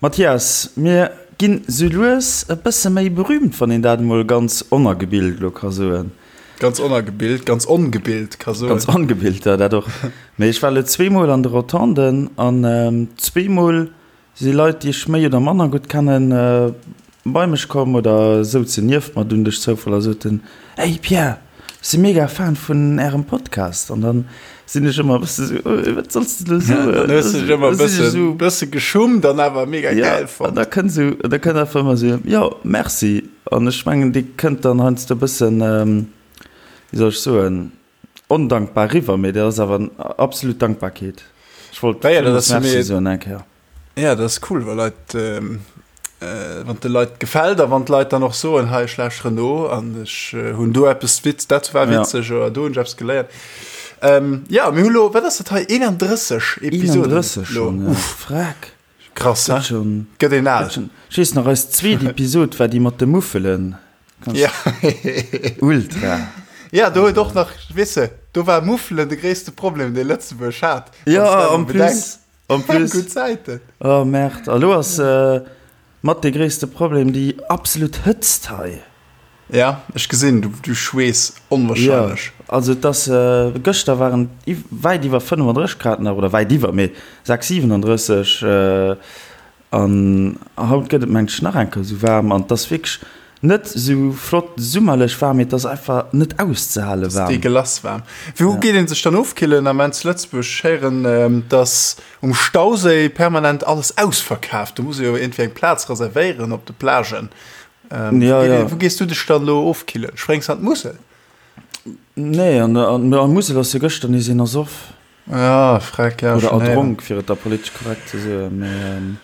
Mathias, mir ginn sou lues e bësse méi berühmt, wann een dat emol ganz onergebilt elo ka soen. Ganz onergebilt, ganz ongebilt ka soen. Ganz ongebilt, jo, dat och. Mee ech war elo zweemol an de Rotonden an zweemol Si Leit, déi ech méi oder manner gutt kennen, bei mech komm oder souzen nieft mer dunn duerch Zoufall a soten, Hey Pierre, ech si mega Fan vun Ärem Podcast. An dann sinn ech ëmmer e bësse sou, Wat solls de elo soen? Dann hues de dech ëmmer e bësse, bësse geschummt an awer mega gäil fonnt. Ja, an da kënnt sou, da kënnt einfach ëmmer sou, Jo, merci. An ech mengen, déi kënnt dann heiansdo e bëssen, wéi soll ech soen, Ondankbar riwwer, mee dat ass awer absolut Dankbarkeet. Ech wollt ja, ja, Merci soen eng Kéier. Ja, dat ass cool, wa Leit, ähm, äh, wann de Leit gefält a wann d'Leit dann och soen, hei ech lauschteren no an ech äh, hunn do eppes Witz, dat war witzeg ja. oder do hunn ech eppes geléiert. Ähm, ja, mir hu lo, wat ass dat hei, 31 Episoden. 31 schon, ja. Uff. Freck. Krass, he? Schon, Gëtt een al. Ech weess nach, eis zweet Episod war déi mat de Muffelen. Ja. Ultra. Ja, do huet och nach, weess de, do war Muffelen de gréisste Problem, dee Lëtzebuerg hat. Ja, en plus. En plus. Gutt Zäiten. Oh, Merde. A lo ass mat de gréisste Problem déi absolut Hëtzt hei. Ja, ech gesinn, du, du schweess onwahrscheinlech. Ja, also et ass, gëschter waren et wäit iwwer 35 Grad nach, oder wäit iwwer, mee 6, 37. An haut gëtt et mengt ech nach eng Kéier esou waarm an et ass wierklech net esou flott summerlech waarm, mee et ass einfach net auszehale waarm. Et ass dégueulasse waarm. Wou geet een sech dann ofkillen am zu Lëtzebuerg? Ech héieren, dass um Stauséi permanent alles ausverkaaft. Do muss ee jo iergendwéi eng Plaz reservéieren op de Plagen. Wou gees du dech dann elo ofkillen? Spréngs an d'Musel? Nee, an der Musel ass jo gëschter nees een ersoff. Ja, freck, ja. Oder erdronk, fir et da politesch korrekt ze soen. Mee, ähm,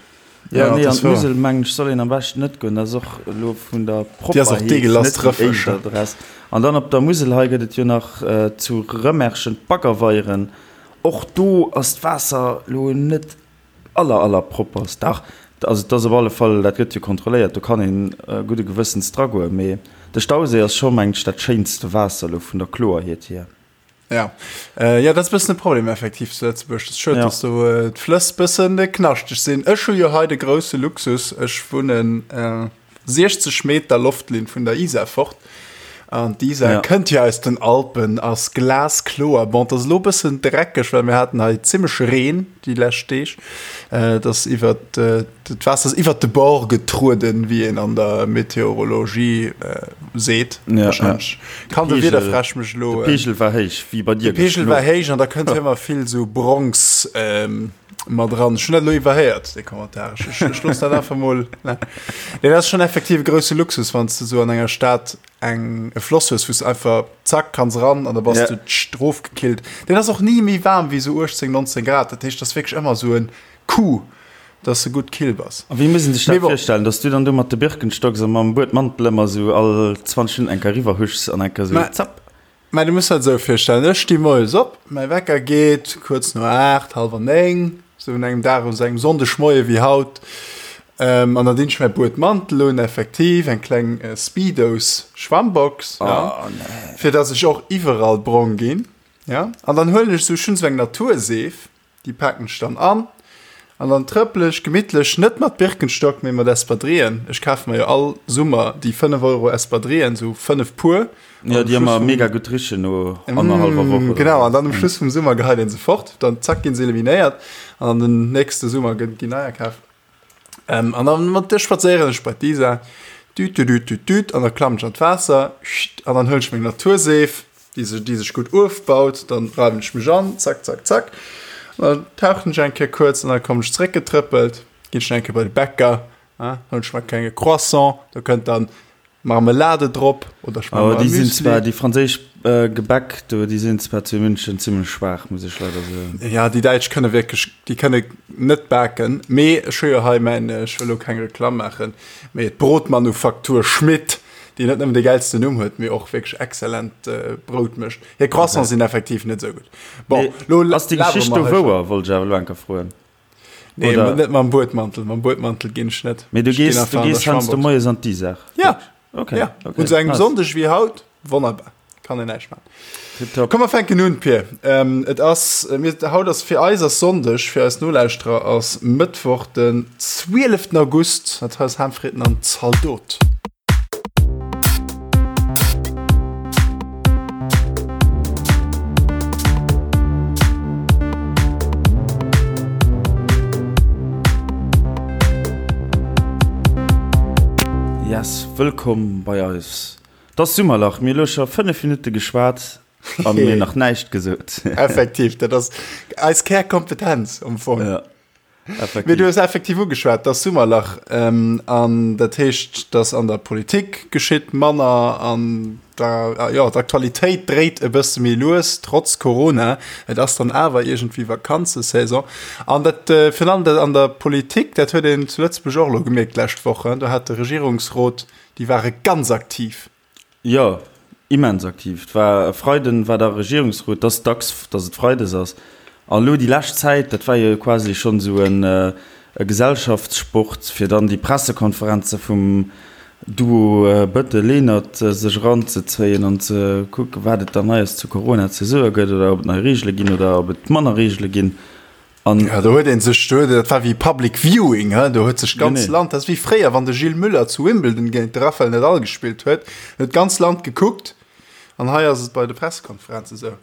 ja, nee, an d'Musel, mengen ech, soll een am beschten net goen. Dat ass och elo vun der Propperheet net déi éischt Adress. An dann op der Musel hei gëtt et jo nach zu Rëmerschen d'Baggerweieren. Och do ass d'Waasser elo net aller, aller propperst. Dach, also et ass op alle Fall, dat gëtt jo kontrolléiert, do kann een gudde Gewëssens dragoen. Mee de Stauséi ass scho, mengen ech, dat schéinste Waasser elo vun der Kloerheet hier. Ja. Äh, ja, dat ass bëssen e Problem effektiv zu Lëtzebuerg. Dat ass schued, ja. dass do äh, d'Flëss bëssen äh, knaschteg sinn. Ech hu jo hei de grousse Luxus, ech wunnen äh, 60 Meter Loftlinn vun der Isar fort. An d'Isar ja. kënnt jo aus den Alpen, ass glaskloer. Bon, dat ass lo bëssen dreckeg, well mir haten hei zimmlech Reen déi lescht Deeg. Äh, dat ass iwwer äh, D'Waasser ass iwwert de Bord getrueden, wéi een an der Meteorologie seet. Ja, wahrscheinlech. Ja. Kann de Wiederfräsch mech elo. De Peegel war héich, wéi bei dir. De Peegel war héich an da kënnt ëmmer vill sou Bronx ähm, mat dran. Ech hunn dat elo iwwerhéiert, dee Kommentar. Ech, ech looss dat einfach mol. Ne. Nee, dat ass schonn effektiv e grousse Luxus, wann s de sou an enger Stad eng e Floss hues, wou s einfach zack kanns ran an da bass ja. du rofgekillt. Deen ass och ni méi waarm wéi sou 18, 19 Grad. Dat heescht, dat ass wierklech ëmmer sou en Coup. Dass de gutt kill bass. A wéi muss een sech dat virstellen, dass du dann do mat de Birkenstocks a mam Buedmantel ëmmer esou all 20 Minutten eng Kéier eriwwer huschs an eng Kéier esou zapp? Mä du muss dat esou virstellen, ech sti moies op, mäi Wecker geet kuerz no 8, hallwer 9, esou un engem Dag, un esou engem Sonndegmoie wéi haut, an dann dinn ech mäi Buedmantel un, effektiv eng kleng Speedos-Schwammbox, ja, fir dass ech och iwwerall brong ginn, ja, an dann huelen ech esou, ech hunn esou eng Naturseef, Déi paken ech dann an an dann trëppel ech gemittlech, net mat Birkenstock, mee mat Espadrillen. Ech kafe mer jo all Summer déi 5 Euro Espadrillen, sou 5 Puer. Jo, déi ëmmer mega gutt richen no annerhallwer Woch oder Genau, an dann um Schluss vum Summer geheit een se fort, dann zack ginn se eliminéiert an den nächste Summer ginn neier kaf. Ähm, an dann mat der spadséieren ech bei d'Isar, düt, düt, düt, düt, düt, an da klammen ech an d'Waasser, scht, an dann huelen ech meng Naturseef, déi sech, déi sech gutt ofbaut, dann reiwen ech mech an, zack, zack, zack, an dann tauchen ech eng Kéier kuerz an dann kommen ech zeréckgetrëppelt, ginn ech nach eng Kéier bei de Bäcker, hein, huelen ech mer e klenge Croissant, do kënnt dann Marmelade drop oder ech maache mer e Müsli. Zwar déi franséisch Gebäck do, déi sinn zwar zu München zimmlech schwaach, muss ech leider soen. Ja, déi Däitsch kënne wierklech, déi kënne net baken. Mee ech hu jo hei mäin, ech wëll elo keng Reklamm maachen, mee d'Brotmanufaktur Schmitt, déi net nëmmen de gäilsten Numm huet, mee och wierklech exzellent Brout mécht. Hir Croissants sinn effektiv net esou gutt. Bon, elo Ass déi Geschicht do wouer, wollt ech awer elo eng Kéier froen. Nee, Oder? net mam Buedmantel. Mam Buedmantel ginn ech net. Mee du gees, du gees heiansdo moies an d'Isar? Ja. Okay. Ja. Okay. Un sou engem nice. Sonndeg wéi haut, wonnerbar. Kann een näischt maachen. Tipptopp. Komm mer fänken un, Pir. Ähm, et ass, äh, mir, haut ass fir eis ass Sonndeg, fir eis Nolauschterer ass Mëttwoch den 12. August. Dat hei ass Haamfritten an Zaldot. Yes, wëllkomm bei eis. 't ass Summerlach, mir hu lo scho 5 Minutte geschwat a mir nach näischt gesot. Effektiv, dat ass eis Kärkompetenz am Fong. Ja, effektiv. Mee du hues effektiv ugeschwat, 't ass Summerlach an dat heescht, dass an der Politik geschitt manner an der, jo, d'Aktualitéit dréit e bësse méi lues, trotz Corona. Et ass dann awer iergendwéi Vakanzesaison an dat virun allem dat an der Politik, dat huet een zu Lëtzebuerg och elo gemierkt d'lescht Woch, do hat de Regierungsrot Déi ware ganz aktiv. Jo, immens aktiv. Et war e Freiden war da Regierungsrot, et ass dacks, datt et freides ass. An elo déi lescht Zäit, dat war jo quasi schonn esou e Gesellschaftssport, fir dann déi Pressekonferenze vum Duo Bettel-Lenert sech eranzezéien an ze kucken, wat et dann Neies zu Corona ze soe gëtt oder ob et nei Reegele ginn oder ob et manner Reegele ginn. An ja, do huet een sech, do huet, dat war wéi Public Viewing, he? Do huet sech d'ganz nee. Land, dat ass wéi fréier, wann de Gilles Müller zu Wimbledon géint de Rafael Nadal gespillt huet, huet d'ganz Land gekuckt. An hei ass et bei de Pressekonferenze sou.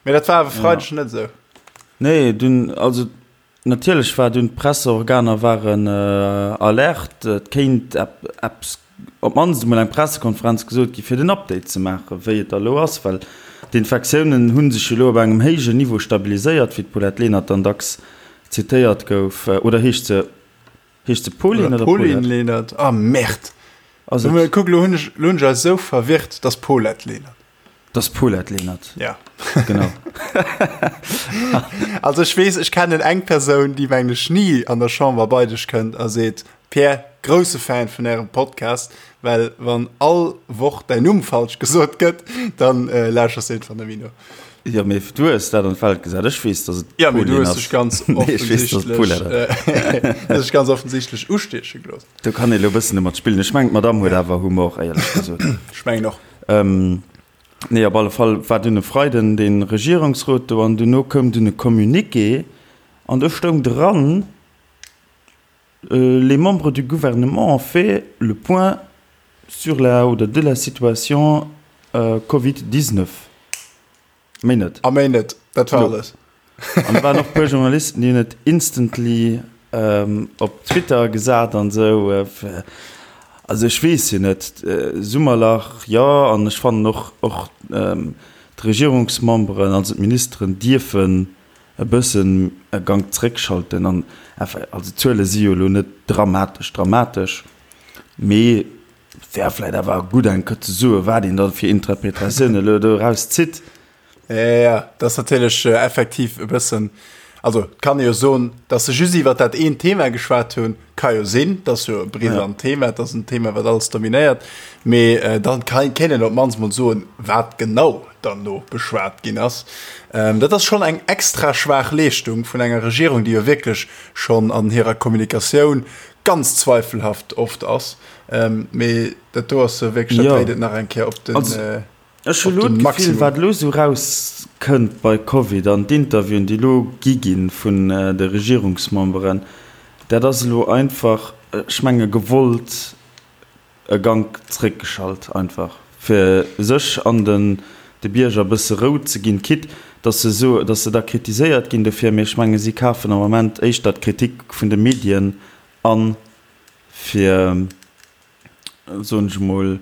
Mee dat war awer Freideg ja. net sou. Nee, dunn, also natierlech war dunn d'Presseorganer waren äh, alert, et kéint eppes op d'mannst emol eng Pressekonferenz gesot gi fir den Update ze maachen, wéi et da elo ass, well d'Infektiounen hu sech jo elo op engem héijen Niveau stabiliséiert, wéi d'Paulette Lenert dann dacks zitéiert gouf. Oder heescht se, heescht se Pauline oder Paulette? Pauline Lenert, ah Merde! Ass et? Kuck, elo hunn ech, elo hunn ech eis esou verwirrt, et ass Paulette Lenert. Et ass Paulette Lenert. Ja. Genau. Also ech weess, ech kennen eng Persoun, déi mengen ech ni an der Chamber bei dech kënnt a seet, Pierre, grousse Fan vun ärem Podcast, well wann all Woch däin Numm falsch gesot gëtt, dann äh, lauschers de einfach net méi no. Jo, mee du hues dat an d'Welt gesat. Ech weess, dass et Ja, mee du hues dech ganz offensichtlech, äh, dech ganz offensichtlech ustieche gelooss. Do kann ee lo bëssen domat spillen. Ech mengen, d'Madame huet awer Humor, éierlech gesot. Ech mengen och. Ähm, nee, op alle Fall war dunn e Freiden dee Regierungsrot do an duerno koum dunn e Communiqué an do stoung dran, Les membres du gouvernement ont fait le point sur la oder de la situation Covid 19. Méi net. A méi net, dat war alles. An da waren och e puer Journalisten, déi hunn et instantly op Twitter gesat an esou. Also ech weess jo net, Summerlach, jo, an ech fannen och, och d'Regierungsmemberen, also d'Ministeren dierfen e bëssen e Gank zréckschalten an enfin, also d'Zuele si jo elo net dramatesch dramatesch, mee et wär vläicht awer gutt eng Kéier ze soen, wat een da fir Interpretatioune elo doraus zitt. Jo, jo, dat ass natierlech effektiv e bëssen, also et kann ee jo soen, datt se just iwwert dat eent Thema geschwat hunn, ka jo sinn, dat ass jo e brisant Thema, dat ass en Thema, wat alles dominéiert, mee dann kéint een op d'mannst mol soen, wat genau dann do beschwat ginn ass. Dat ass schonn eng extra schwaach Leeschtung vun enger Regierung, déi jo wierklech schonn an hirer Kommunikatioun ganz zweifelhaft oft ass. Mee dat do ass wierklech, dat dréit et nach eng Kéier op den Maximum. Ech hu lo d'Gefill, wat elo esou rauskënnt bei Covid an d'Interviewen, déi elo gi ginn vun de Regierungsmemberen, dat ass elo einfach, ech menge gewollt e Gank zréckgeschalt einfach, fir sech an den de Bierger e bësse Rou ze ginn, quitte dass se soe, dass se da kritiséiert ginn dofir, mee ech menge si kafen am Moment éischter d'Kritik vun de Medien an, fir, soen ech emol,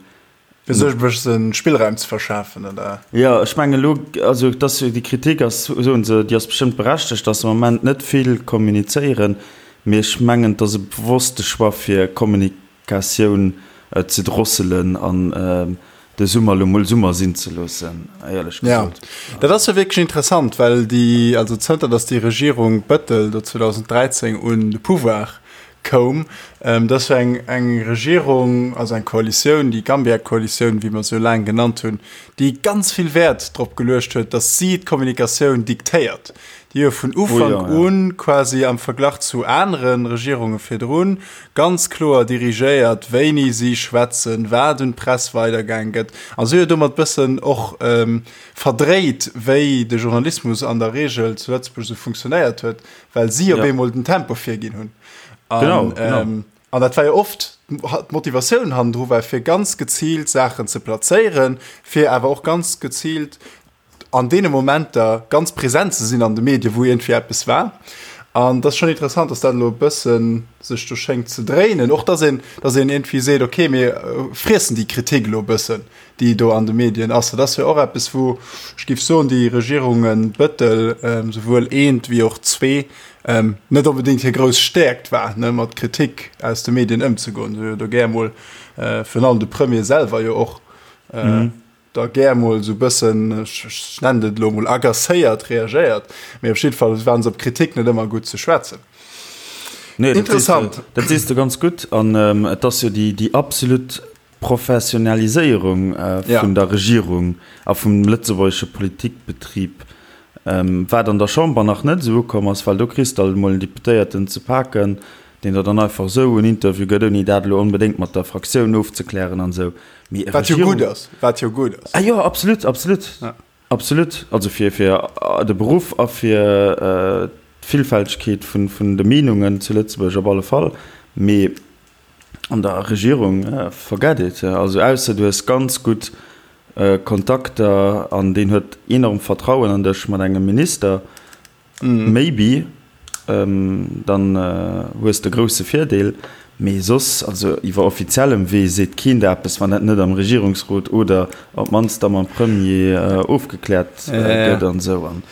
Fir sech e bësse Spillraum ze verschafen, oder? Jo, ech mengen elo, also dass déi Kritik ass, soen se, déi ass bestëmmt berechtegt, dass se am Moment net vill kommunizéieren, mee ech mengen, et ass e bewosste Choix fir Kommunikatioun ze drosselen an de Summer elo mol Summer sinn ze loossen, éierlech gesot. Jo, dat ass jo wierklech interessant, well déi, also zënter datt déi Regierung Bettel do 2013 un de Pouvoir. koum. Dat ass jo eng, eng Regierung, also eng Koalitioun, déi Gambia-Koalitioun, wéi mer se jo laang genannt hunn, déi ganz vill Wäert drop geluecht huet, datt si d'Kommunikatioun diktéiert. Déi jo vun Ufank u quasi am Verglach zu anere Regierunge virdrun ganz kloer dirigéiert, wéini si schwätzen, wat un d'Press weidergaang gëtt. A si huet domat bëssen och verdréit, wéi de Journalismus an der Reegel zu Lëtzebuerg esou funktionéiert huet, well si op eemol den Tempo virginn hunn. An an dat war jo oft d'Motivatioun hannendru war, fir ganz geziilt Saachen ze plazéieren, fir awer och ganz geziilt an deene Momenter ganz present ze sinn an de Medien, wou iergendwéi eppes war. An dat ass schonn interessant, dass dat elo e bësse sech do schéngt ze dréinen. Och dass een, dass een iergendwéi seet, okay, mir friessen déi Kritik elo e bëssen, déi do an de Medien ass. Dat ass jo och eppes, wou ech géif soen, déi Regierunge Bettel, souwuel eent wéi och zwee, net onbedéngt hir grouss Stäerkt war, ne, mat Kritik aus de Medien ëmzegoen. Se hu jo do gär emol, virun allem de Premier selwer jo och, da gär mol esou bëssen, ech nennen et elo mol agacéiert reagéiert, mee op jidde Fall waren se op Kritik net ëmmer gutt ze schwätzen. Nee, Interessant. Dat sees de ganz gutt an et ass jo déi, déi absolut Professionaliséierung vun der Regierung a vum lëtzebuergesche Politikbetrib, wat an der Chamber nach net esou ukomm ass, well do kriss de alt emol en Deputéierten ze paken, deen der dann einfach esou en Interview gëtt, ouni dat elo onbedéngt mat der Fraktioun ofzeklären an esou. Mee Wat jo gutt ass, wat jo gutt ass. Ah jo, absolut, absolut, ja. Absolut. Also fir, fir de Beruff a fir d'Villfältegkeet vun, vun de Meenungen zu Lëtzebuerg op alle Fall. Mee an der Regierung, forget it. Also ausser du hues ganz gutt Kontakter an deen huet enorm Vertrauen an dech mat engem Minister, Maybe, dann hues de grousse Virdeel, mee soss, also iwwer offiziellem Wee seet keen der eppes, wann dat net am Regierungsrot oder op d'mannst da mam Premier ofgekläert gëtt an esou. An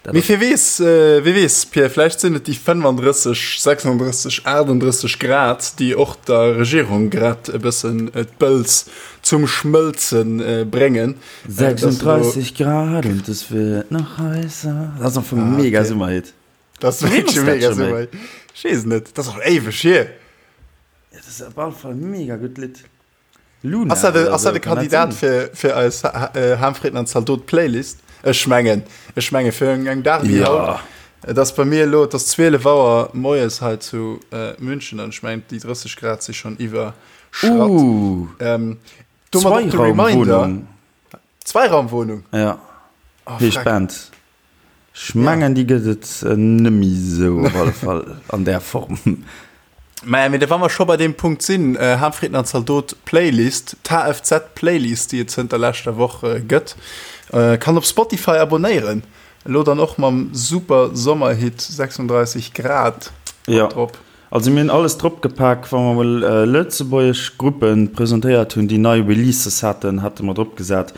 dat Mee wie weess, wie weess, Pierre, vläicht sinn et déi 35, 36, 38 Grad, déi och der Regierung grad e bëssen d'Bëls zum Schmëlze bréngen. 36 Grad und es wird noch heißer. Dat ass am Fong ah, mega okay. Summerhit. Dat ass wierklech e mega Summerhit. Ech weess net, dat ass och éiweg hier. Ja, dat ass op alle Fall mega gutt Lidd. Luna. Ass dat, ass dat e Kandidat fir, fir eis äh, Harmfrieden an Zaldot Playlist? Ech mengen, ech menge fir eng, eng Dag wéi ja. haut. Et ass bei mir elo, et ass 12 Auer moies hei zu äh, München an ech mengen déi 30 Grad si schon iwwerschratt. Uh. Ähm, Domat och de Reminder. Zweiraumwohnung? Ja. Oh, Heescht Band. Ech mengen, déi gëtt et nëmmi sou op alle Fall an där Form. Mä mee wa mer scho bei deem Punkt sinn, Harmfrieden an Zaldot Playlist, d'HFZ Playlist, déi et zënter leschter Woch gëtt, kann op Spotify abonéieren. Elo dann och mam super Sommerhit 36 Grad drop. Also mir hunn alles drop gepak, wa mer mol lëtzebuergesch Gruppe presentéiert hunn, déi nei Releases haten, hate mer drop gesat.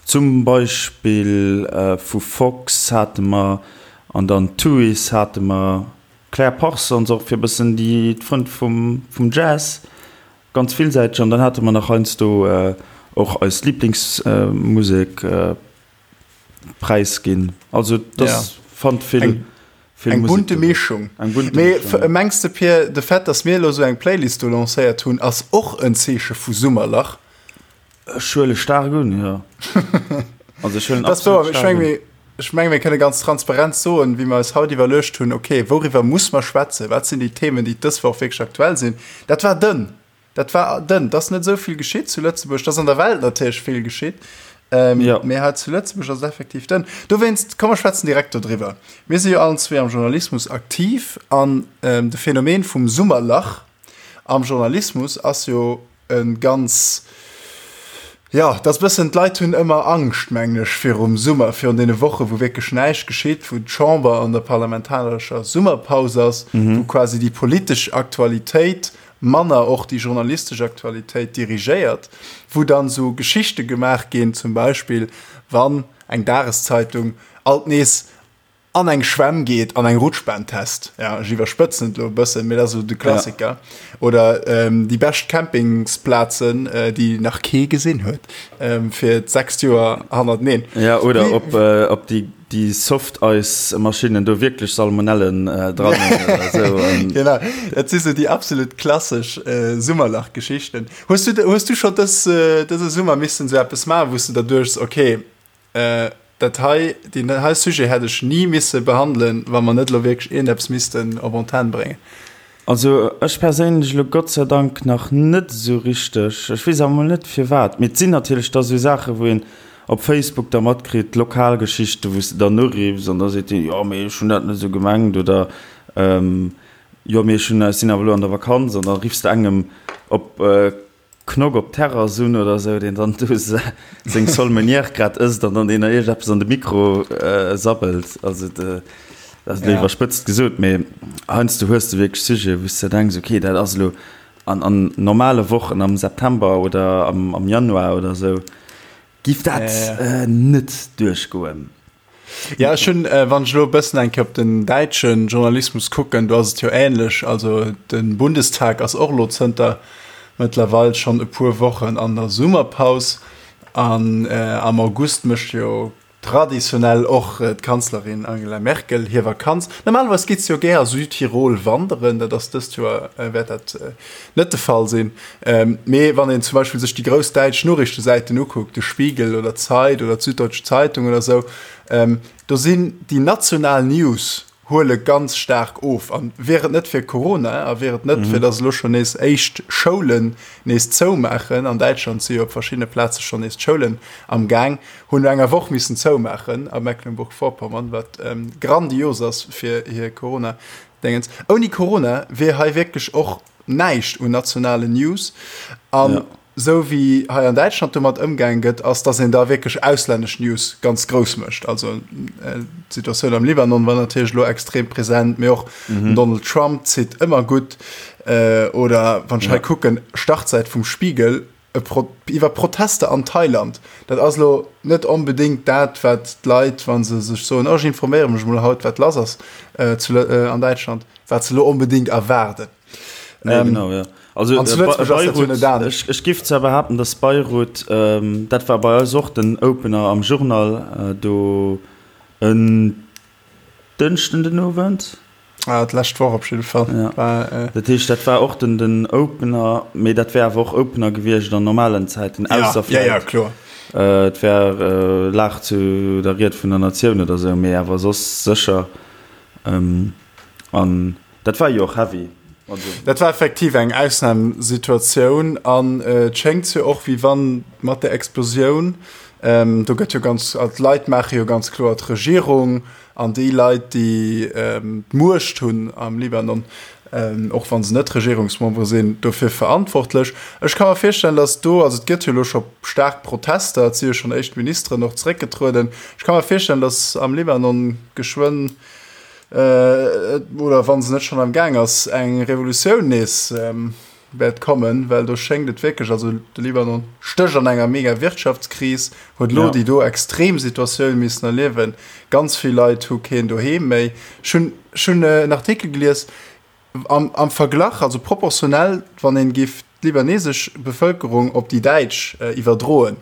Zum Beispill vu Fox hate mer an dann Tuys hate mer, Claire Parsons och fir e bëssen déi d'Frënn vum vum Jazz, ganz villsäiteg. An dann hate mer nach heiansdo och eis Liblingsmusek. Präis ginn. Also das ja. fand vill eng, vill eng bunte Mischung. Eng bunte Mee Mischung. Mengs de Pierre, de Fait, dass mir elo sou eng Playlist do lancéiert hunn, ass och en Zeeche vu Summerlach? Ech huele staark un, jo. Also ech huelen absolut staark un. Ech menge mir kënne ganz transparent soen, wéi mer eis haut iwwerluecht hunn, okay, wouriwwer muss mer schwätzen, wat sinn déi Themen, déi dës Woch wierklech aktuell sinn. Dat war dënn. Dat war dënn. Et ass net esou vill geschitt zu Lëtzebuerg. Et ass an der Welt natierlech vill geschitt. Ähm, ja. Mee hei zu Lëtzebuerg ass et effektiv dënn. Dowéinst, komm mer schwätzen direkt dodriwwer. Mir si jo allen zwee am Journalismus aktiv an ähm, de Phänomen vum Summerlach am Journalismus ass jo e ganz, Jo, et ass bëssen, d'Leit hunn ëmmer Angscht, mengen ech, virum Summer, virun deene Woche wou wierklech näischt geschitt, wou d'Chamber an der parlamentarescher Summerpaus ass, wou quasi déi politesch Aktualitéit manner och déi journalistesch Aktualitéit dirigéiert, wou dann esou Geschichte gemaach ginn, zum Beispill wann eng Dageszeitung alt nees an eng Schwämm geet an eng Rutschbahn test. Ja, ech iwwerspëtzen et elo e bëssen, mee dat ass esou de Klassiker. Ja. Oder ähm, déi bescht Campingsplazen, äh, déi nach kee gesinn huet, ähm, fir d'sechst Joer hannerteneen. Ja, oder Wie, ob, äh, ob déi déi Soft-Ice-Maschinnen do wierklech Salmonellen dran hunn oder esou. Genau, dat si sou déi absolut klassesch Summerlach-Geschichten. Hues du, hues du scho dës, dëse Summer missen esou eppes maachen, wou s de der duechts, okay, dat hei, deen hei Sujet hätt ech ni misse behandelen, wa mer net elo wierklech iergendeppes missten op Antenn bréngen? Also ech perséinlech elo Gott sei Dank nach net esou richteg. Ech weess awer mol net firwat. Mee et sinn natierlech da sou Saachen, wou een op Facebook da matkritt, Lokalgeschichten, wou s de dann uriffs an da seet deen, jo mee ech hunn dat net esou gemengt oder jo mee ech hunn, ech sinn awer elo an der Vakanz an da riffs de engem op Knock op d'Terrass un oder sou, deen dann do seng Sole meunière grad ësst an dann deen der iergendeppes an de Mikro sabbelt. Also dat ass elo iwwerspëtzt gesot, mee heiansdo hues de wierklech Sujeten, wou s de denks, okay, dat ass elo an an normale Wochen am September oder am Januar oder sou giff dat net duerchgoen. Ja, ech hunn, wann ech elo e bëssen eng Kéier op den däitsche Journalismus kucken, do ass et jo ähnlech. Also de Bundestag ass och elo zënter mëttlerweil schonn e puer Wochen an der Summerpaus. An am August mécht jo traditionell och d'Kanzlerin Angela Merkel hir Vakanz. Normalerweis geet se jo gär a Südtirol wanderen, dat ass dëst Joer wäert dat net de Fall sinn. Mee wann een zum Beispill sech déi grouss däitsch Noriichtesäiten ukuckt, de Spiegel oder d'Zeit oder d'Süddeutsche Zeitung oder esou, do sinn déi national News huele ganz staark of. An wier et net fir Corona a wier et net fir datt elo schonn nees éischt Schoulen nees zoumaachen, an Däitschland si jo op verschiddene Plaze schonn nees d'Schoulen am Gaang, hunn no enger Woch missen zoumaachen a Mecklenburg-Vorpommern, wat grandios ass fir hir Corona-Déngens. Ouni Corona wier hei wierklech och näischt un nationalen News. An esou wéi hei an Däitschland domat ëmgaange gëtt, ass, datt een da wierklech auslännesch News ganz grouss mécht. Also d'Situatioun am Libanon war natierlech elo extrem present, mee och den Donald Trump zitt ëmmer gutt. Oder wann ech hei kucken, Startsäit vum Spiegel iwwer Protester an Thailand. Dat ass elo net onbedéngt dat, wat d'Leit, wa se sech soen, oh ech informéiere mech emol haut, wat lass ass an Däitschland, wat se elo onbedéngt erwaarden. Nee, ähm, genau, ja. Also, äh, Beirut, ech, ech giff zwar behaapten, dass Beirut, ähm, dat war bei eis och den Opener am Journal, äh, do en Dënschden den Owend. Ah, d'lescht Woch op jidde Fall. Ja. War, äh, dat heescht, dat war och den, den Opener, mee dat wär awer och Opener gewiescht an normalen Zäiten, ausser ja, ja, ja, kloer. Äh, et wär äh, lag zu der Ried vun der Natioun oder sou, mee awer soss sécher. Ähm, an Dat war jo och heavy. Also. Dat war effektiv eng Ausnamsituatioun an et schéngt jo och, wéi wann mat der Explosioun, do gëtt jo ganz, also d'Leit maache jo ganz kloer d'Regierung an déi Leit, déi d'Muecht hunn am Libanon, och wa se net Regierungsmembere sinn, dofir verantwortlech. Ech ka mer virstellen, datt do, also et gëtt jo elo scho staark Protester, et si jo schonn éischt Ministeren och zeréckgetrueden, ech ka mer virstellen, datt am Libanon geschwënn, oder wann se net schonn am Gaang ass, eng Revolutioun nees wäert kommen, well do schéngt et wierklech, also de Libanon stécht an enger mega Wirtschaftskris, huet elo déi do extrem Situatioun missen erliewen, ganz vill Leit hu keen Doheem méi. Ech hunn, ech hunn en Artikel gelies, am, am Verglach, also proportionell, wann een giff d'libanesesch Bevëlkerung op déi däitsch iwwerdroen,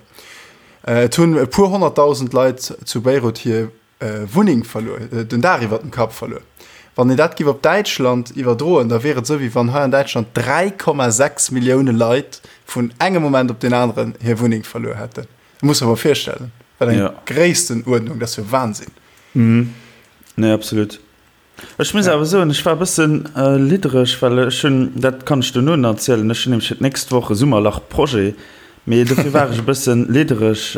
et hunn e puer honnertdausend Leit zu Beirut hir Wunneng verluer, den Daach iwwert dem Kapp verluer. Wann een dat giff op Däitschland iwwerdroen, da wier et esou, wéi wann hei an Däitschland 3,6 Millioune Leit vun engem Moment op deen aneren hir Wunneng verluer hätten. Dat muss der mol virstellen, wat eng Gréisstenuerdnung, dat ass jo Wahnsinn. Nee, absolut. Ech muss awer soen, ech war e bëssen liddereg, well ech hunn, dat kann ech duerno nach erzielen, ech hunn nämlech fir d'nächst Woch e Summerlach-Projet, mee dofir war ech e bëssen liddereg,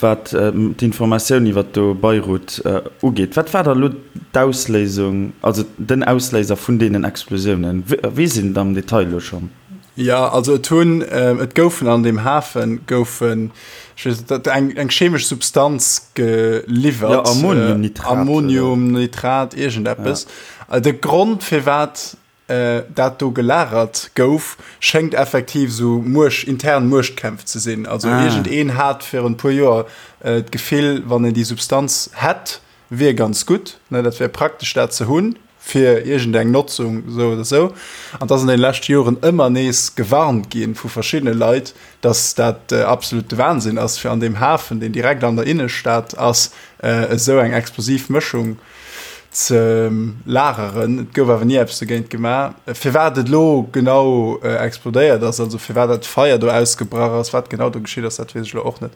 wat d'Informatioun iwwer do Beirut ugeet. Wat war da elo d'Ausléisung, also den Ausléiser vun deenen Explosiounen? Weess een et am Detail elo schonn? Jo, also et hunn, et goufen an deem Hafe goufen, ech weess net, eng, eng chemesch Substanz geliwwert. Jo, Ammoniumnitrat. Ammoniumnitrat, iergendeppes. Ja. De Grond, firwat dat do gelagert gouf, schéngt effektiv esou Muecht, intern Muechtkämpf ze sinn. Also ah. iergendeen hat virun e puer Joer d'Gefill, wann en déi Substanz hätt, wier ganz gutt, ne, dat wär praktesch dat ze hunn. Fir iergendeng Notzung, esou oder esou. An et ass an deene leschte Joren ëmmer nees gewarnt gi vu verschiddene Leit, datt dat absolute Wahnsinn ass, fir an deem Hafen, deen direkt an der Innestad ass, esou eng explosiv Mëschung ze lageren. Et gouf awer ni eppes dogéint gemaach. Firwat et elo genau explodéiert ass, also firwat dat Feier do ausgebrach ass, wat genau do geschitt ass, dat weess ech elo och net.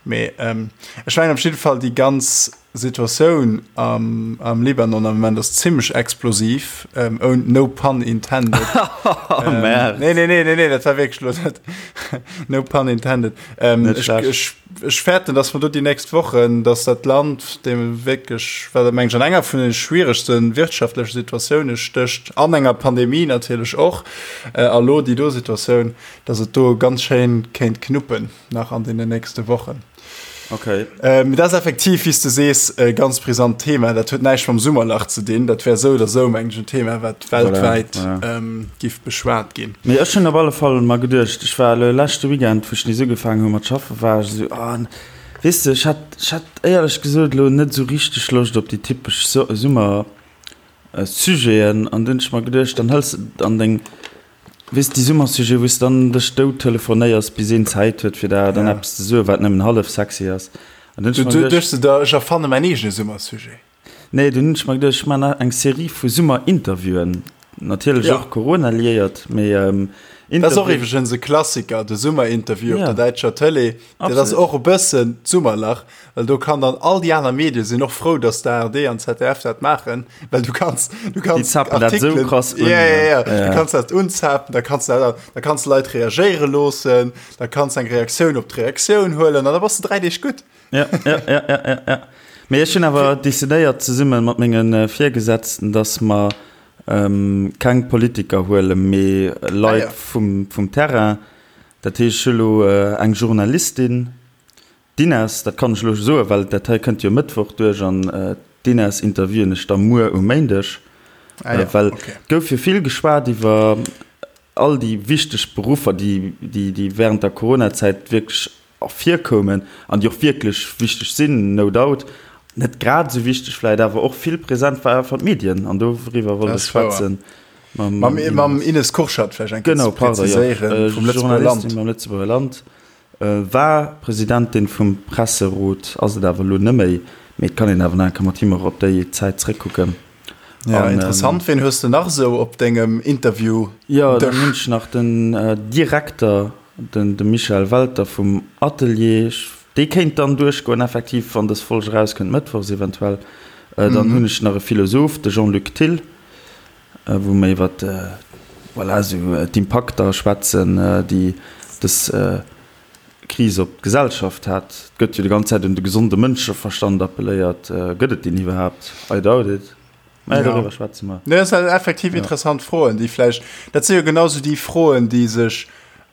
Mee ech mengen op jidde Fall déi ganz Situatioun am Libanon am Moment ass zimmlech explosiv, no pun intended. Oh Merde. Nee, nee, nee, nee, nee, dat war wierklech elo net. No pun intended. Net schlecht. Ech, ech fäerten, dass mer do déi nächst Wochen, dass dat Land, deem wierklech, wat meng ech an enger vun de schwieregste wirtschaftleche Situatioune stécht, an enger Pandemie natierlech och, a lo déi do Situatioun, dass et do ganz schéin kéint knuppen nach an deenen nächste Wochen. Okay. Ähm, dat ass effektiv, wéi s de sees, e ganz brisant Thema. Dat huet näischt mam Summerlach ze dinn. Dat wär esou oder esou, meng ech, en Thema, wat weltwäit Voilà, ja. ähm, giff beschwat ginn. Mee ech hunn op alle Fall mer geduecht, ech war elo leschte Weekend, wou ech nees ugefaangen hu mat schaffen, war ech esou, ah, weess de, ech hat, ech hat éierlech gesot elo net esou richteg Loscht op déi typesch Summer Sujeten. An dunn hunn ech mer geduecht, dann hëls de an deng Weess, déi Summersujete, wou s de dann dech dout telefonéiers, bis een Zäit huet, fir der dann Ja. eppes ze soen, wat nëmmen hallef sexy ass. An dunn hunn Du ech mer du geduecht. duechts de der, ech erfanne mäin eegene Summersujet. Nee, dunn hunn ech mer geduecht, ech maachen eng Serie vu Summerinterviewen. Natierlech Ja. och Corona-liéiert, mee Dat ass och Interviewen. iwwregens e Klassiker, de Summerinterview op Ja. der däitscher Tëlee. Dat ass Absolut. och e bëssen d'Summerlach. Well do kann dann all déi aner Medie sinn och frou, datt d'ARD an d'ZDF dat maachen, well du kanns du Déi kanns zappen dat esou Artikelen krass un. Ja, ja, ja. Ja. Du kanns dat unzapen, da kanns du dat, da kanns du Leit reagéiere loossen, da kanns eng Reaktioun op d'Reaktioun huelen an da bass du 3 Deeg gutt. Ja, ja, ja, ja, ja, ja. Mee ech hunn awer decidéiert zesumme mat menge Virgesetzten, datt mer ähm, keng Politiker huelen, mee Leit Ah, ja. vum, vum Terrain. Dat heescht, ech hu lo eng Journalistin, D'Ines, dat kann ech elo soen, well dat hei kënnt jo Mëttwoch duerch an d'Ines interviewen ech da muer um Méindeg. Ah ja, Well okay. et gouf jo vill geschwat iwwer all déi wichteg Beruffer, déi, déi, déi während der Coronazäit wierklech ervirkoumen an déi och wierklech wichteg sinn, no doubt. Net grad esou wichteg vläicht, awer och vill present war einfach d'Medien an doriwwer wollt Dat ech ass wouer. schwätzen Mam, mam mam Ines. Ines Kurschat vläicht eng Kéier Genau, ze pardon, jo. präziséieren, vum Lëtzebuerger Journalistin Land. beim Lëtzebuerger Land. War Presidentin vum Presserot, ass et awer elo neméi, mee et kann een awer nach eng Kéier mat him och op déi Zäit zréckkucken. Ja, An, interessant. Ween hues de nach esou op dengem Interview-Dësch? Jo, dann hunn ech nach den Direkter, den de Michel Welter vum Atelier. Dee kéint dann duerchgoen, effektiv, wann dës Folg erauskënnt, mëttwochs eventuell. Dann hunn ech nach e Philosoph, de Jean-Luc Thill. wou mer iwwer voilà, esou d'Impakter schwätzen, déi dës Kris op d'Gesellschaft hat. Et gëtt jo déi ganz Zäit un de gesonde Mënscheverstand appelléiert. Gëtt et deen iwwerhaapt? I doubt it. Mä doriwwer schwätze mer. Nee, dat sinn effektiv interessant Froen, déi vläicht, dat si jo genau esou déi Froen, déi sech,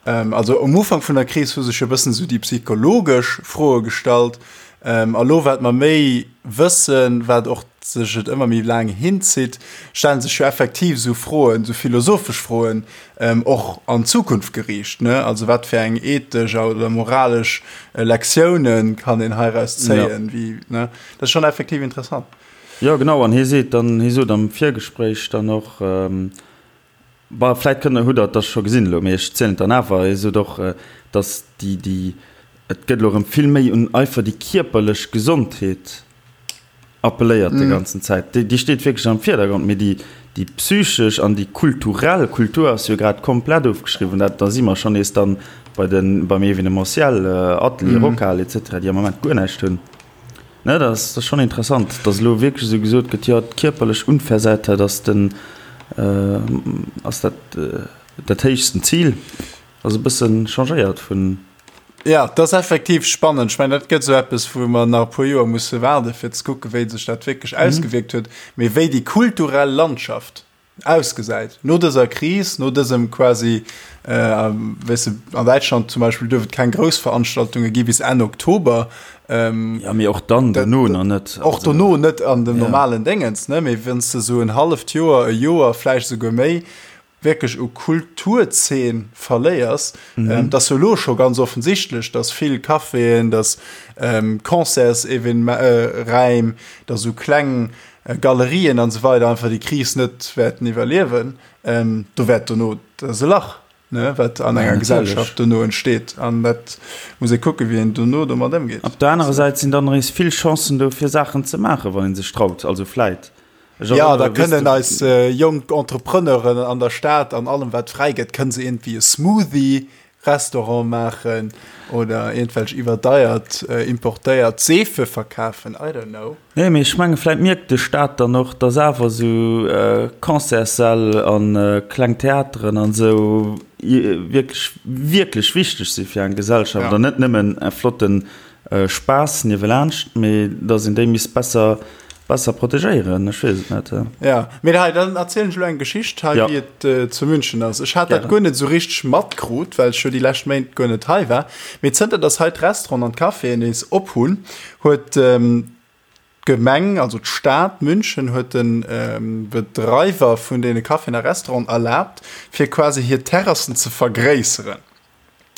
also um Ufank vun der Kris hu sech jo e bëssen esou déi psychologesch Froe gestallt. A lo, wat mer méi wëssen, wat och sech et ëmmer méi laang hinzitt, stellen sech jo effektiv esou Froen, esou philosophesch Froen, och an d'Zukunft geriicht, ne? Also wat fir eng ethesch oder moralesch Lektiounen kann een heiraus zéien, wéi, ne? Dat ass schonn effektiv interessant. Jo, genau. An hie seet dann, hie sot am Virgespréich dann och, Bon, vläit kënnt, hutt Der et da scho gesinn elo, mee ech zielen et dann awer, hie sot och, datt déi, déi, et gëtt elo erëm vill méi un einfach déi kierperlech Gesondheet appelléiert déi ganzen Zäit. Déi, déi steet wierklech am Virdergrond, mee déi, déi psychesch an déi kulturell, Kultur ass jo grad komplett ofgeschriwwen, dat, da si mer schonn nees dann bei den, beim Evenementiel, Atelier, Rockhal et cetera, déi am Moment guer näischt hunn. Ne, dat ass, dat ass schonn interessant, datt elo wierklech esou gesot gëtt, jo, d'kierperlech Unversehrtheit ass den, ass dat, dat héichsten Zil. Ass e bësse changéiert vun. Jo, dat ass effektiv spannend. Ech mengen, dat gëtt esou eppes, wou mer nach e puer Joer musse waarden, fir ze kucken, wéi sech dat wierklech ausgewierkt huet. Mee wéi déi kulturell Landschaft ausgesäit no dëser Kris, no dësem quasi, weess de, an Däitschland zum Beispill duerf et keng grouss Veranstaltunge gi bis Enn Oktober. Jo, mee och dann dono nach net. Och dono net an dem normalen Déngens, ne? Mee wann s de esou en halleft Joer, e Joer, vläicht esouguer méi, wierklech u Kulturzeen verléiers, et ass jo elo scho ganz offensichtlech, datt vill Caféen, datt Concertsevenement-Räim, datt esou kleng. Galerien an esou weider einfach déi Kris net wäerten iwwerliewen. Do wäert dono, dat ass e Lach, ne, wat an enger Gesellschaft dono entsteet. An dat muss ee kucken, wéi een dono domat ëmgeet. Op der anerer Säit sinn dann nees vill Chancen do, fir Saachen ze maachen, wann ee sech traut. Also vläit. Ech Jo, da erënnere, kënnen eis jonk Entrepreneuren an der Stad an allem, wat fräi gëtt, kënne se iergendwéi e Smoothie Restaurant maachen oder iergendwelch iwwerdeiert importéiert Seefe verkafen, I don't know. Nee, mee ech menge vläit mierkt de Staat dann och, dass awer esou Concertssäll a kleng Theateren an esou wierklech, wierklech wichteg si fir eng Gesellschaft an net nëmmen e flotten Spaass niewelaanscht, mee dass een déi misst besser, besser protegéieren. Ech weess et net. Ja, mee hei, dann erzielen ech elo eng Geschicht hei, wéi et zu München ass. Ech hat dat guer net esou richteg matkrut, well ech jo déi lescht Méint guer net hei war. Mee zënter dass hei d'Restauranten an d'Caféen nees op hunn, huet d'Gemeng, also d'Stad München huet de Bedreiwer vun deene Caféen a Restauranten erlaabt, fir quasi hir Terrassen ze vergréisseren.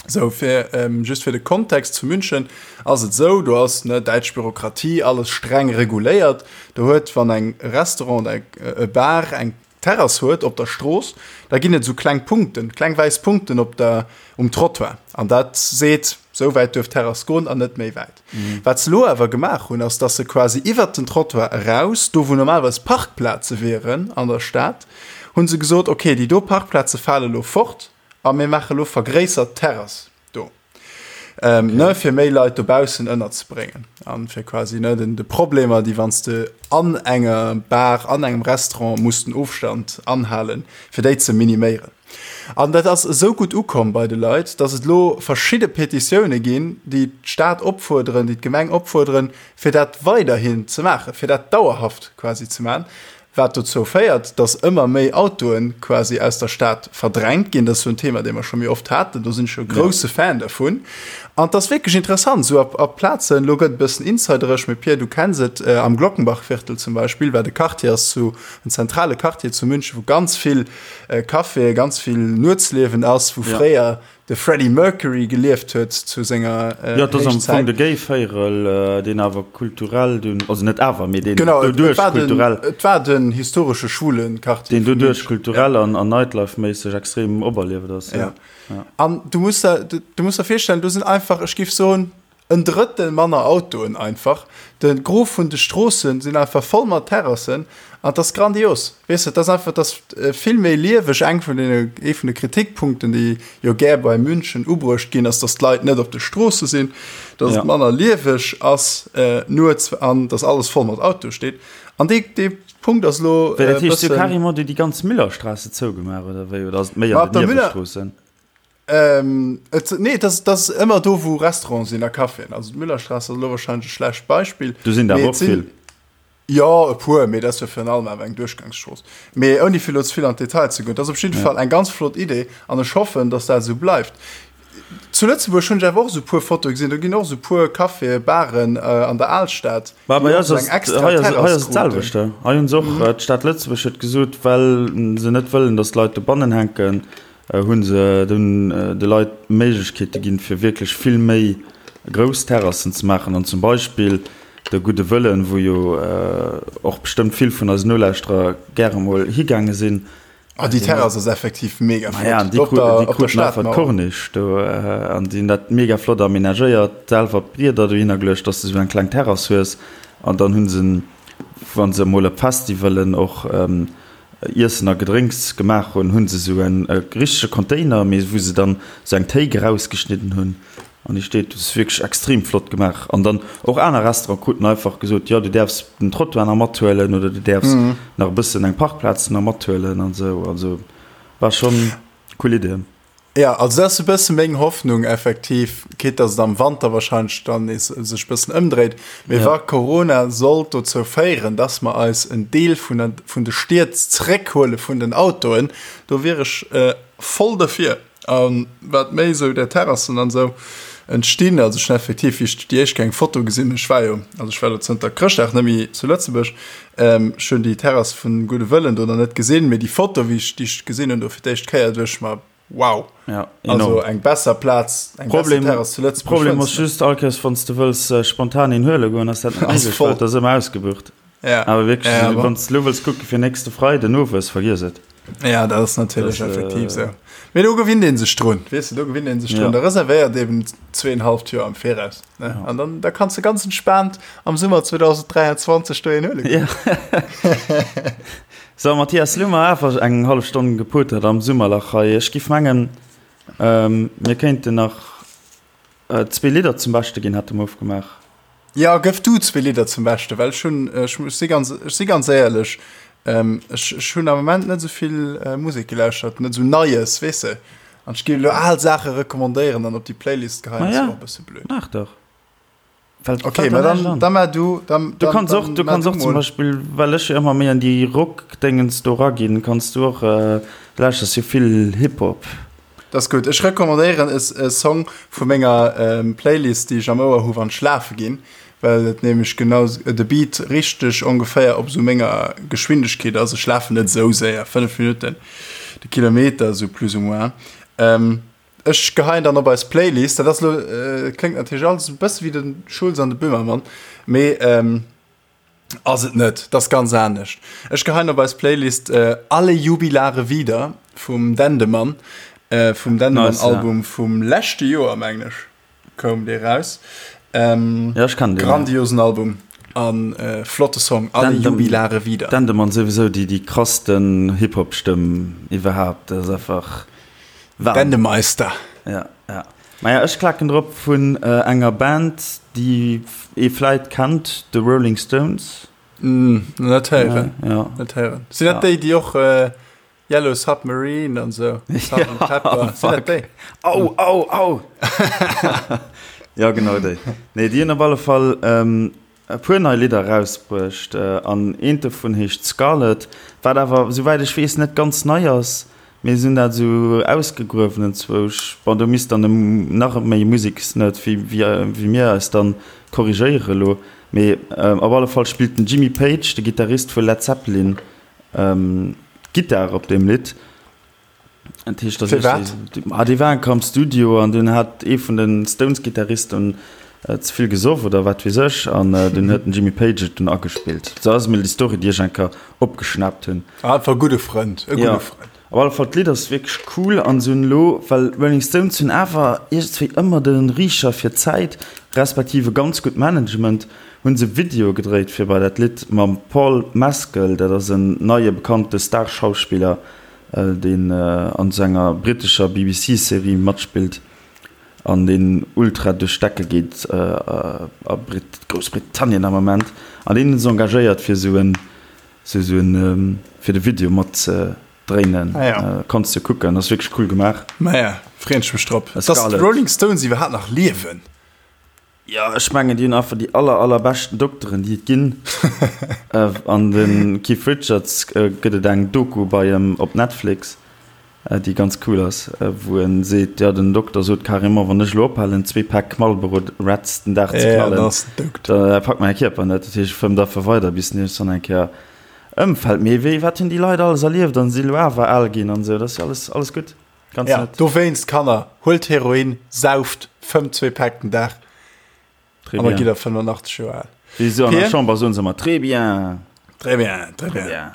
Sou, fir, just fir de Kontext, zu München ass et esou, do ass, ne, däitsch Bürokratie, alles streng reguléiert. Do huet, wann eng Restaurant oder e Bar eng Terrass huet op der Strooss, da ginn et esou kleng Punkten, kleng wäiss Punkten op der, um Trottoir. An dat seet, sou wäit duerf d'Terrass goen an net méi wäit. Wat se elo awer gemaach hunn, ass, dass se quasi iwwert den Trottoir eraus, do wou normalerweis Parkplaze wieren an der Stad, hu se gesot, okay, déi do Parkplaze fale elo fort, A mir maache lo vergréissert Terrass do, ne, fir méi Leit dobaussen ënnerzebréngen an fir quasi, ne, den, de Problemer, déi wann s de an enger Bar, an engem Restaurant muss den Ofstand anhalen, fir déi ze miniméieren. An dat ass esou gutt ukomm bei de Leit, dass et elo verschidde Petitioune ginn, déi d'Stad opfuerderen, déi d'Gemeng opfuerderen, fir dat weiderhin ze maachen, fir dat dauerhaft quasi ze maachen. Wat dozou féiert, dass ëmmer méi Autoe quasi aus der Stad verdrängt ginn. Dat ass jo en Thema, dee mer scho méi oft haten. Do sinn ech jo e grousse Fan dervun. An et ass wierklech interessant, esou a Plazen, elo gëtt et e bëssen insideresch, mee Pierre, du kenns et, am Glockenbachviertel zum Beispill, wat e Quartier ass zu, en zentrale Quartier zu München, wou ganz vill Caféen, ganz vill Nuetsliewen ass, wou fréier de Freddie Mercury gelieft huet zu senger Héichzäit. Jo, et ass am Fong de Gay-Véierel, deen awer kulturell dunn, also net awer, mee deen doduerch kulturell. Genau, et war den historesche schwule Quartier. Deen doduerch kulturell an Nightlife-méisseg extrem operlieft ass. Jo. An du muss der, du muss der virstellen, do sinn einfach, ech géif soen, En Drëttel manner Autoen einfach. De Gros vun de Stroossen sinn einfach voll mat Terrassen an et ass grandios. Weess de, et ass einfach, et ass vill méi lieweg. Eng vun deene, ee vun de Kritikpunkten, déi jo gär bei München ubruecht ginn, ass, datt d'Leit net op de Stroosse sinn, datt et manner lieweg ass nuets an datt alles voll mat Autoe steet. An dee, dee Punkt ass elo e bëssen. Dat heescht, si hu carrément déi ganz Müllerstraße zougemaach oder wéi? Oder ass et méi an den Niewestroossen? Ähm, et, nee, das, das ist ëmmer do, wou Restaurants sinn a Caféen. Also d'Müllerstraße ass elo wahrscheinlech e schlecht Beispill. Do sinn der awer och vill. Jo, e puer, mee dat ass jo virun allem awer eng Duerchgangsstrooss. Mee ouni fir elo ze vill an d'Detail ze goen, dat ass op jidde Fall eng ganz flott Idee an ech hoffen, dass dat esou bleift. Zu Lëtzebuerg hunn ech awer och esou e puer Fotoe gesinn, do ginn och esou e puer Caféen, Baren an der Alstad, Mä bei eis ass et, hei ass, hei ass et d'selwecht. Hei hunn se och, d'Stad Lëtzebuerg huet gesot, well se net wëllen, dass d'Leit dobannen hänken, hu se dunn de Leit Méiglechkeete ginn, fir wierklech vill méi grouss Terrassen ze maachen an zum Beispill de Gudde Wëllen, wou jo och bestëmmt vill vun eisen Nolauschterer gäre mol higaange sinn. Ah, déi Terrass ass effektiv mega flott. Maja, an déi kruten einfach d'Corniche do an déi hunn dat mega flott amenagéiert, selwer d'Brieder dohinner geluecht, dass de esou eng kleng Terrass hues an dann hu se, wa se emol op Festivalen och Iessen a Gedrénks gemaach hunn, hunn se esou en richtege Container, mee wou se dann esou eng Théik erausgeschnidden hunn an déi steet. Dat ass wierklech extrem flott gemaach. An dann och aner Restaurante kruten einfach gesot, jo du däerfs den Trottoir nach mathuelen oder du däerfs nach e bëssen eng Parkplaz nach mathuelen an esou. Also war schonn cool Idee. Jo, also dat ass e bësse meng Hoffnung effektiv, quitte dass et am Wanter wahrscheinlech dann nees sech e bëssen ëmdréit, mee wa Corona sollt dozou féieren, dass mer eis en Deel vun der, vun de Stied zeréckhuele vun den Autoen, do wier ech voll derfir. A wat méi esou där Terrassen an esou entstinn, also ech hunn effektiv, wéi ech déi éischt Kéier eng Foto gesinn hunn, ech war jo, also ech war elo zënter Chrëschtdag net méi zu Lëtzebuerg, ech hunn déi Terrass vun Gudde Wëllen do nach net gesinn, mee déi Foto, wéi ech, déi ech gesinn hunn do fir d'éischt Kéier, duecht ech mer, Wow! Ja, also eng besser Plaz, eng Problem, besser Terrass zu Lëtzebuerg. Problem ass just, all Kéiers wann s de wëlls spontan een huele goen, ass dat net méiglech, well et ass ëmmer ausgebucht. Ja. Awer wierklech, Ja, also, bon. wann s de elo wëlls kucke fir nächste Freiden owes, vergiess et. Ja, dat ass natierlech Das, äh, effektiv sou. Mee do gewinnt ee sech drun, weess de, do gewinnt ee sech drun. Ja. Da reservéiert eben zweeënhalft Joer am Viraus, ne? Ja. An dann da kanns de ganz entspaant am Summer 2023 do een huele goen. Ja. So, Mathias, lo hu mer awer eng hallef Stonn gepotert am Summerlach hei. Ech giff mengen, ähm, mir kéinten nach Zwee Lidder zum Beschte ginn, hat de Mof gemaach. Jo, gëff du zwee Lidder zum Beschte, well ech hunn, ech si ganz, ech si ganz éierlech, ech, ech hunn am Moment net esou vill Musek gelauschtert, net esou Neies, weess de. An ech géif elo al Saache recommandéieren an op déi Playlist geheien, ass jo och e bësse blöd. Maach dach. Fällt, Okay, fällt ma der näischt dann, an. da mar du, dann, Du dann, kanns och, dann du mar kanns du och zum mol. Beispill, well ech jo ëmmer méi an déi Rock-Déngens do raginn, kanns du och, du lauschters jo vill Hip-Hop. Dat ass gutt. Ech recommandéieren e Song vu menger Playlist, déi ech am Ouer hu wann ech schlafe ginn, well et nämlech genau de Beat richteg ongeféier op esou menger Geschwindegkeet ass. Ech lafen net esou séier, 5 Minutten de Kilometer esou plus ou moins. Ech geheien dann op eis Playlist. Dat ass elo, kléngt natierlech alles e bësse wéi de Schulz an de Böhmermann, mee. Ass et net, dat ass ganz anescht. Ech geheien op eis Playlist Alle Jubilare wieder vum Dendemann, vum Dendemann Album vum leschte Joer mengen ech koum dee raus. Ja ech kennen deen. Grandiosen Album an flotte Song Alle Jubilare wieder. Dendemann souwisou déi déi krassten Hip Hop Stëmm iwwerhaapt, dat ass einfach Wahnsinn. Dendemeister. Ja ja. Maja, ech klaken drop vun enger Band, déi ee vläit kennt, The Rolling Stones. Net héieren. Ja. Net héieren. Sinn dat déi, déi och Yellow Submarine an esou, Sgt. Pepper, sinn dat déi? Au, au, au! Ja, genau déi. Nee, déi hunn op alle Fall e puer nei Lidder erausbruecht an eent dovun heescht Scarlet, wat awer souwäit ech weess net ganz nei ass, mee se hunn dat esou ausgegruewen enzwousch. Bon, do misst dann e nach méi Museksnerd wéi wéi mir eis dann korrigéiere elo, mee op alle Fall spillt den Jimmy Page, de Gittarist vu Led Zeppelin, d'Gittar op deem Lidd. Dat heescht, dass Firwat? Ah, déi waren am Studio an dunn hat ee vun den Stones-Gitarristen ze vill gesoff oder wat weess ech an dunn huet den Jimmy Page et dunn agespillt. Sou ass emol déi Story, déi ech eng Kéier opgeschnaapt hunn. Einfach e gudde Frënd, e gudde Ja, Frënd. op alle Fall, d'Lidd ass wierklech cool an se hunn elo, well d'Rolling Stones hunn awer iergendswéi ëmmer de Riicher fir d'Zäit, respektiv e ganz gutt Management, hunn se Videoe gedréit fir bei dat Lidd mam Paul Mescal, dat ass en neie bekannte Star-Schauspiller, deen an esou enger brittescher BBC-Serie matspillt an deen ultra duerch d'Decke geet a Groussbritannien am Ament. An deen hunn se engagéiert fir esou en, esou en, fir de Video mat ze dréinen. Ah ja. Kanns de kucken, ass wierklech cool gemaach. Maja, freen ech mech drop. Dass Scarlett. d'Rolling Stones iwwerhaapt nach liewen. Jo, ech mengen, déi hunn einfach déi aller, allerbeschten Dokteren, déi et ginn. An de Keith Richards gëtt et eng Doku bei em op Netflix, déi ganz cool ass, wou en seet, jo, den Dokter sot carrément, wann ech elo ophalen, zwee Päck Marlboro Reds den Dag ze knallen, da packt mäi Kierper net. Dat heescht, e fëmmt einfach weider, bis en iergendwann eng Kéier ëmfält. Mee wéi, wat hunn déi Leit alles erlieft an si elo awer al ginn an esou, dat ass jo alles, alles gutt. Ganz ja, nett. Dowéinst, Kanner, huelt Heroin, sauft, fëmmt zwee Päck den Dag. Très bien. Gitt der 85 Joer al. Wéi se an der Chamber soen se ëmmer, Très bien. Très bien, très bien. bien.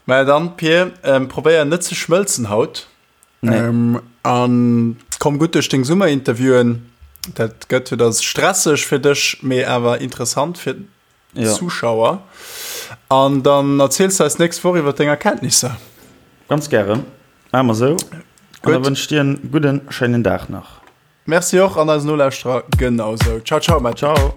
Mä dann, Pir, ähm, probéier net ze schmëlzen haut. Nee. Ähm, an komm gutt duerch deng Summerinterviewen. Dat gëtt jo da stresseg fir dech, mee awer interessant fir ja. Zuschauer. An dann erziels du eis nächst Woch iwwer deng Erkenntnisser. Ganz gären. Maache mer sou. An da wënsch ech dir en gudden, schéinen Dag nach. Merci och an eisen Nolauschterer genau sou. Ciao, ciao, Matt. Ciao.